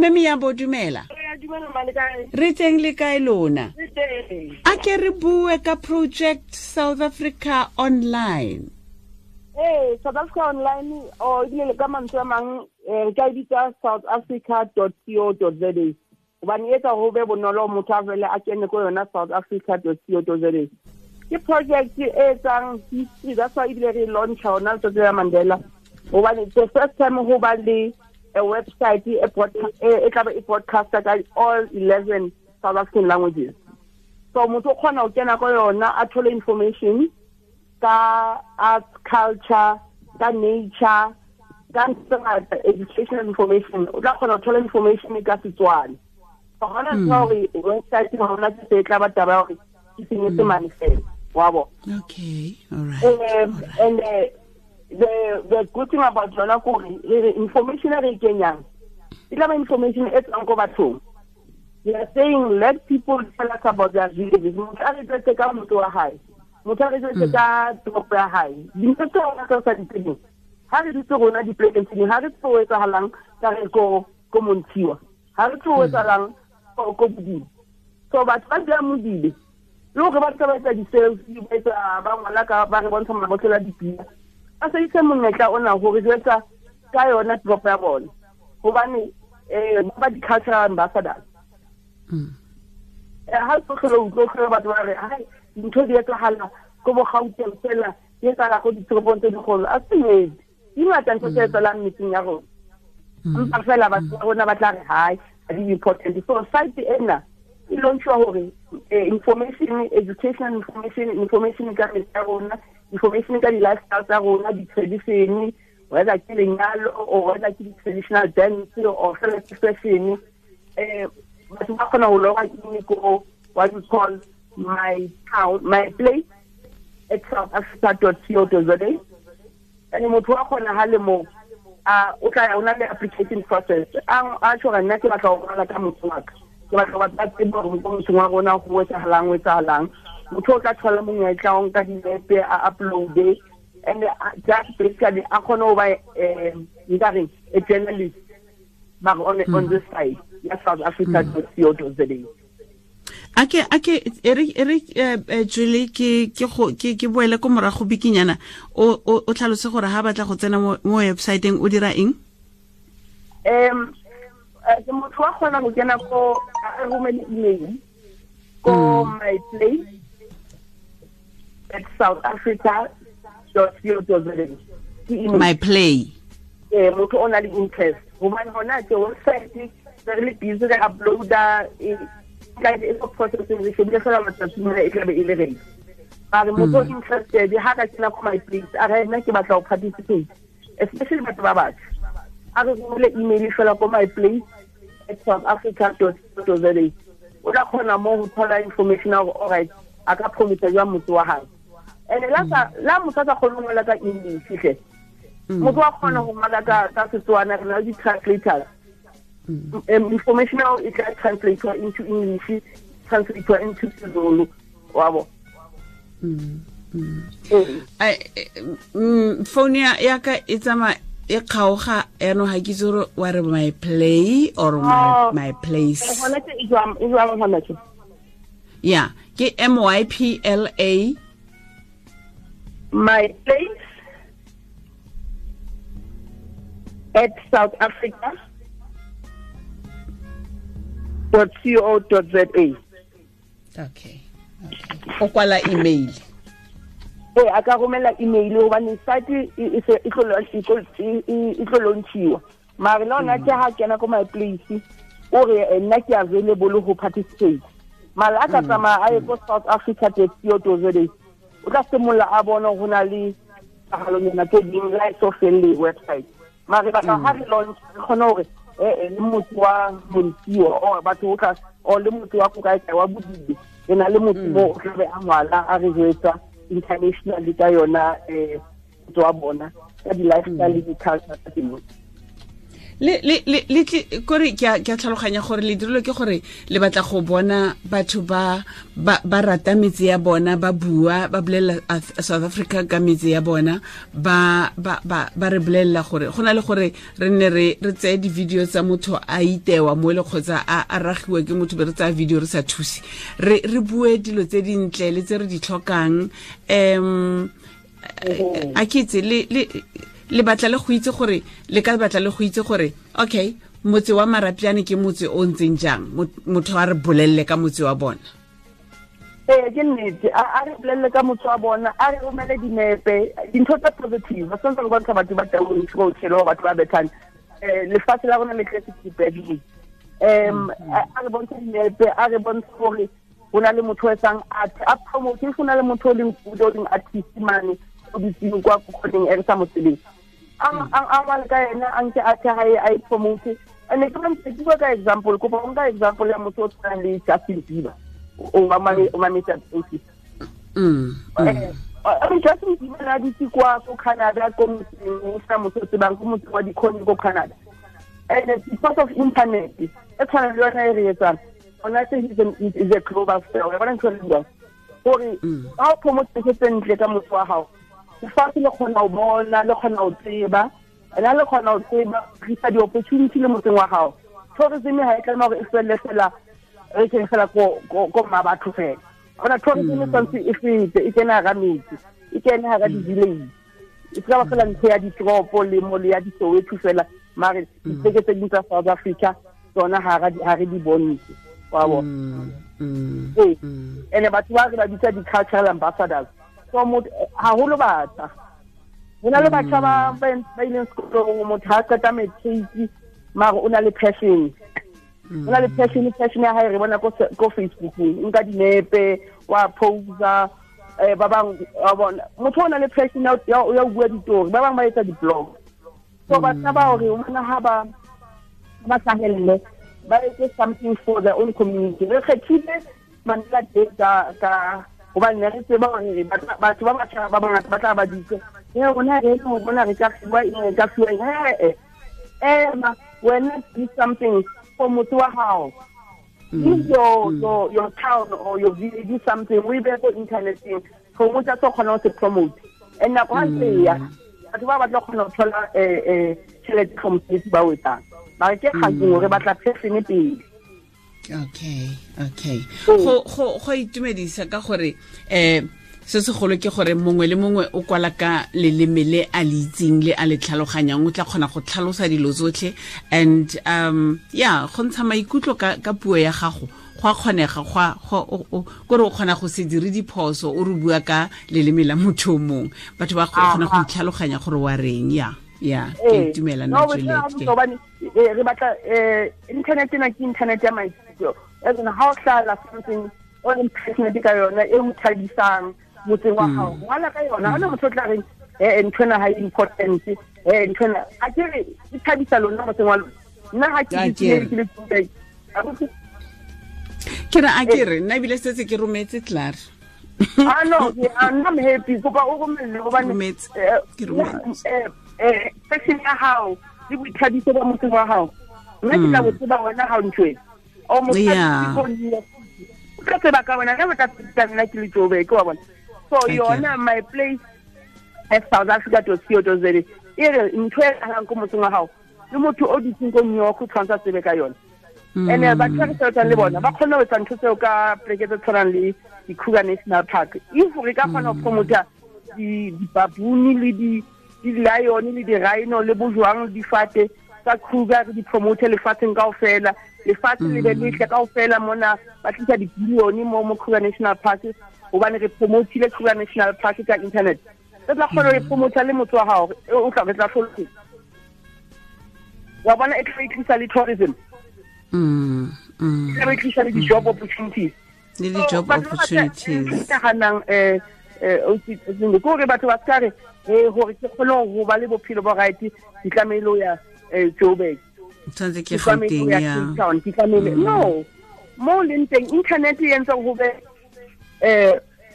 Mme Miyambo, dumela. Re teng le kae lona? A ke re bue ka Project South Africa Online. Ee, South Africa Online, or ebile le ka mantswe a mang, re ka e bitsa southafrica.co.za, gobane e etsa go be bonolo motho a fele a kene ko yona southafrica.co.za. Ke project e etsang history, that's why ebile re launcha ona letsatsi la Mandela, gobane it's the first time go ba le a website e tlabe e broadcaster ka all 11 South African languages. So motho o kgona go kena ko yona a thole information ka arts, culture, ka nature, ka ntho tse ngata, educational information. O tla kgona go thola information ka Setswana. Ga gona ntho ya gore website ga gona se e tla ba taba ya gore ke Senyesemane fela, wa bo. Okay, all right. And the good thing about yona kore re information e re e kenyang e tla ba information e tswang ko bathong. We are saying let people tell us about their villages. Motho a re jwetse ka motho wa hae, motho a re jwetse ka toropo ya hae, dintho tse rona tse sa di tsebeng. Ha re dutse rona dipolekeng tse ding, ha re tsebe ho etsahalang ka re ko Montshiwa, ha re tsebe ho etsahalang ko Bodibe. So batho ba dulang Modibe le hore ba tla ba etsa di-selfie, ba etsa, ba ngwala ka, ba re bontsha mabotlolo a dipina, ba sebedise monyetla ona hore jwetsa ka yona toropo ya bona, hobane ba ba di-cultural ambassadors. Ha o tlhola utlwa, o tlhola batho ba re hai dintho di etsahala ko bo Gauteng fela, di etsahala ko ditoropong tse dikgolo. A se nnete, di ngata ntho tse etsahalang metseng ya rona, empa fela batho ba rona ba tla re hai ha di important. So site ena e launchiwa hore information, educational information, information ka metse ya rona, information ka di-lifestyle tsa rona, di-tradition, whether ke lenyalo or whether ke di-traditional dance or fela ke fashion. Batho ba kgona ho loga in ko what we call my town, my place at southafrica.co.za. And motho wa kgona ha le mo, a o tla ya, o na le application process. A tjho nna ke batla ho ngola ka motho wa ka, ke batla ho batla tsebo hore mo motseng wa rona ho etsahalang, ho etsahalang. Motho o tla thola monyetla o nka dinepe, a uploade, and just basically a kgone ho ba, nka reng, a journalist mara on this side ya South Africa dot co dot za. Ake, ake, ere, ere, Julie, ke, ke go, ke, ke boele ko morago bikinyana, o tlhalose gore ha batla go tsena mo website-eng o dira eng? Ke motho wa kgona go kena ko, a romele email ko my place at south africa dot co dot za. Ke email. My play. Motho o na le interest. Hobane hona ke website, re le busy re uploada, ka e go processing, re shebile fela matsatsi mona e tlabe e le ready. Mare motho o interested, ha ka kena ko my place, a re nna ke batla ho participate, especially batho ba batjha, a re romele email fela ko my place at south africa dot co dot za. O tla kgona mo ho thola information ya hore all right, a ka promote jwang motse wa hae. And la motho a sa kgone ho ngola ka English hle, motho wa kgona ho ngola ka Setswana, re na le di-translators. Information ao e tla translate into English, translate into Sezulu, wa bo. Ai, phone ya ka e tsamaya e kgaoga, yaanong ga ke itse gore wa re my play or my place. Gona ke e jwang, e jwang hona ke? Yeah, ke M Y P L A. My place at South Africa dot co dot za. Okay. Okay. O kwala email. Ee, a ka romela email hobane site e se e tlo e tlo, e, e, e tlo launchiwa. Mare le hona ke ha kena ko my place, o re, nna ke available ho participate. Mara a ka tsamaya a ye ko South Africa dot co dot za, o tla simolla a bona ho na le tahalonyana tse ding le ha e so felle website. Mare batla ha re launch, re kgone hore, le motho wa Montshiwa, or batho o tla, or le motho wa ko kae kae wa Bodibe, re na le motho mo o tlabe a ngwala, a re jwetsa internationally ka yona, motho wa bona, ka di-lifestyle le di-culture tsa teng. Le kore ke a tlhaloganya gore le dirilwe ke gore le batla go bona batho ba ba rata metse ya bona, ba bua, ba bolelela South Africa ka metse ya bona, ba ba ba ba re bolelela gore go na le gore re nne re tseye di-video tsa motho a itewa mo le kgotsa a ragiwa ke motho, be re tsaya video re sa thuse, re bue dilo tse dintle le tse re di tlhokang. A ke itse le batla le go itse gore le ka batla le go itse gore okay, motse wa Marapyane ke motse o ntseng jang, motho a re bolelle ka motse wa bona. Ee, ke nnete, a re bolelle ka motse wa bona, a re romele dinepe, dintho tsa positive. Ba santse re bontsha batho ba taung tshelo, batho ba bethang. Lefatshe la rona le tletse dipeding. A re bontshe dinepe, a re bontshe gore go na le motho o etsang art, a promote. Go na le motho o leng good, o leng artist mane, o dutseng kwa kgoneng e re sa mo tsebeng, a ngwale ka ena, a nke art ya hae, a e promote. And ke bantse ke bua ka example, kopa o nka example ya motho o tshwanang le Justin Bieber, o mametse ausi. Justin Bieber na dutse kwa ko Canada, ko motseng o sena motho o tsebang, ko motseng wa dikhoni ko Canada. And because of internet e tshwana le yona e re etsang ona, se is a global star. Wa bona ntho e re buang gore ha o promote ntho tse ntle ka motho wa hao, lefatshe le kgona ho bona, le kgona ho tseba, and ha le kgona ho tseba, tlisa di-opportunity le motseng wa hao. Tourism ha e tlameha hore e felle fela, re kene fela ko mma batho fela. Ona tourism e tshwanetse e fete, e kene hara metse, e kene hara di-village, e se ka ba fela ntho ya ditoropo le mo le ya di-Soweto fela, mare dipleke tse ding tsa South Africa tsona ha re di bontshe, wa bona. Ee, ene batho ba re ba bitsa di-cultural ambassadors. So motho haholo batjha, ho na le batjha ba ileng sekolong, motho ha qeta matric, mare o na le passion, o na le passion. Passion ya hae re bona ko Facebookong, nka dinepe, wa posa. Ba bang wa bona motho o na le passion ya ho bua ditori, ba bang ba etsa di-blog. So batjha ba hore bona ha ba hlahelle, ba etse something for their own community. Re kgethile Mandela Day ka hobane ne re tseba hore batho ba batjha ba bangata ba tla ba ditse, e rona re no bona re ka fiwa eng, re ka fiwa eng. Ema wena, do something for motho wa hao. If your town or your village, do something, we be ko interneteng, promote tsa kgona ho se promote. And nako ha ntse ya, batho ba batla kgona ho thola tjhelete from mosebetsi ba o etsang, mara ke kgatseng hore batla passion pele. Okay. Go itumedisa ka gore se segolo ke gore mongwe le mongwe o kwala ka leleme le a le itseng le a le tlhaloganyang, o tla kgona go tlhalosa dilo tsotlhe. And yeah, go ntsha maikutlo ka puo ya gago go a kgonega, kore o kgona go se dire diphoso, o re bua ka leleme la motho o mongwe, batho ba kgona go itlhaloganya gore wa reng. Ya, ke itumela nna Juliet. Re batla internet ena ke internet ya maikutlo. Ene ha o hlala something o leng passionate ka yona, e o thabisang motseng wa hao, ngwala ka yona. Ha ona motho o tla reng ntho ena ha e important, ntho ena a ke re e thabisa lona motseng wa lona. Nna ha ke ke le ke re a ke re nna ebile setse ke rometse klaar. Ah no, I'm happy. Kopa o romelle hobane ke rometse passion ya hao le boithabiso ba motseng wa hao. Nna ke tla bo tseba wena ha o ntho e o motho o tla tseba ka wena, ka tla nna ke le Joburg, wa bona. So yona my place at South Africa to co za e re ntho e halang ko motseng wa hao, le motho o dutseng ko New York o tshwanetse a tsebe ka yona. And batho ba re sebetsang le bona ba kgona ho etsa ntho tseo ka pleke tse tshwanang le di-Kruger National Park. If re ka kgona ho promota di-baboon le di-lion le di-rhino le bojwang le difate tsa Kruger, re di promote lefatsheng kaofela, lefatshe le be letle kaofela mona, ba tlisa di-billion mo Kruger National Park, hobane re promotile Kruger National Park ka internet. Re tla kgona ho e promota le motho wa hao, o tla re tla hloloha. Wa bona, e tla tlisa le tourism. E tla tlisa le di-job opportunities. Le di-job opportunities. Ke nahanang ke hore batho ba ska re hore ke kgone ho ba le bophelo bo right, ke tlamehile ho ya Joburg. Tshwanetse ke Gauteng ya. Ke tlamehile. No. Mo leng teng internet e entse ho be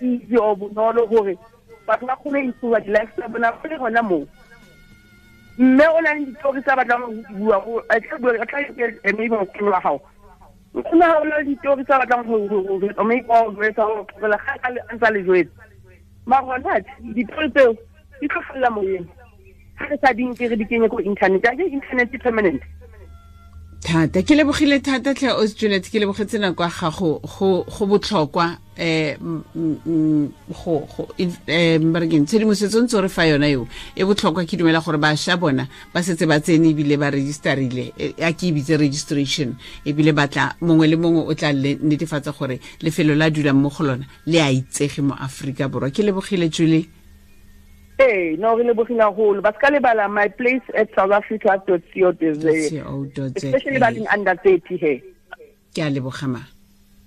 easy o bonolo hore batho ba kgone ho improve di-life tsa bona ba le hona moo. Mme o na le ditori tsa batlang go di bua, a tla bua, a tla maybe nkgono wa gago. Nkgono wa gago o na le ditori tsa batlang go maybe wa go jwetsa gore tlogela ga a ntse a le jwetsa. Mara gona ditori tseo di tlo felela moyeng. Ga re sa di nke re di kenye ko internet, a ke internet e permanent. Thata ke lebogile thata tlhe o Juliet, ke lebogetse nako ya gago, go botlhokwa go barekeng tshedimosetso ntse re fa yona eo e botlhokwa. Ke dumela gore bašwa bona ba setse ba tsene ebile ba registerile, a ke e bitse registration, ebile batla mongwe le mongwe o tla netefatsa gore lefelo la dulang mo go lona le a itsege mo Aforika Borwa. Ke lebogile, Julie. Ee, no, re lebogile haholo. Ba ska lebala my place at South Africa dot co dot za, especially ba leng under 30 he. Ke a leboga ma.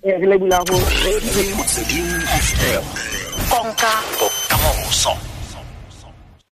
Ee, re lebogile haholo. Motsweding FM.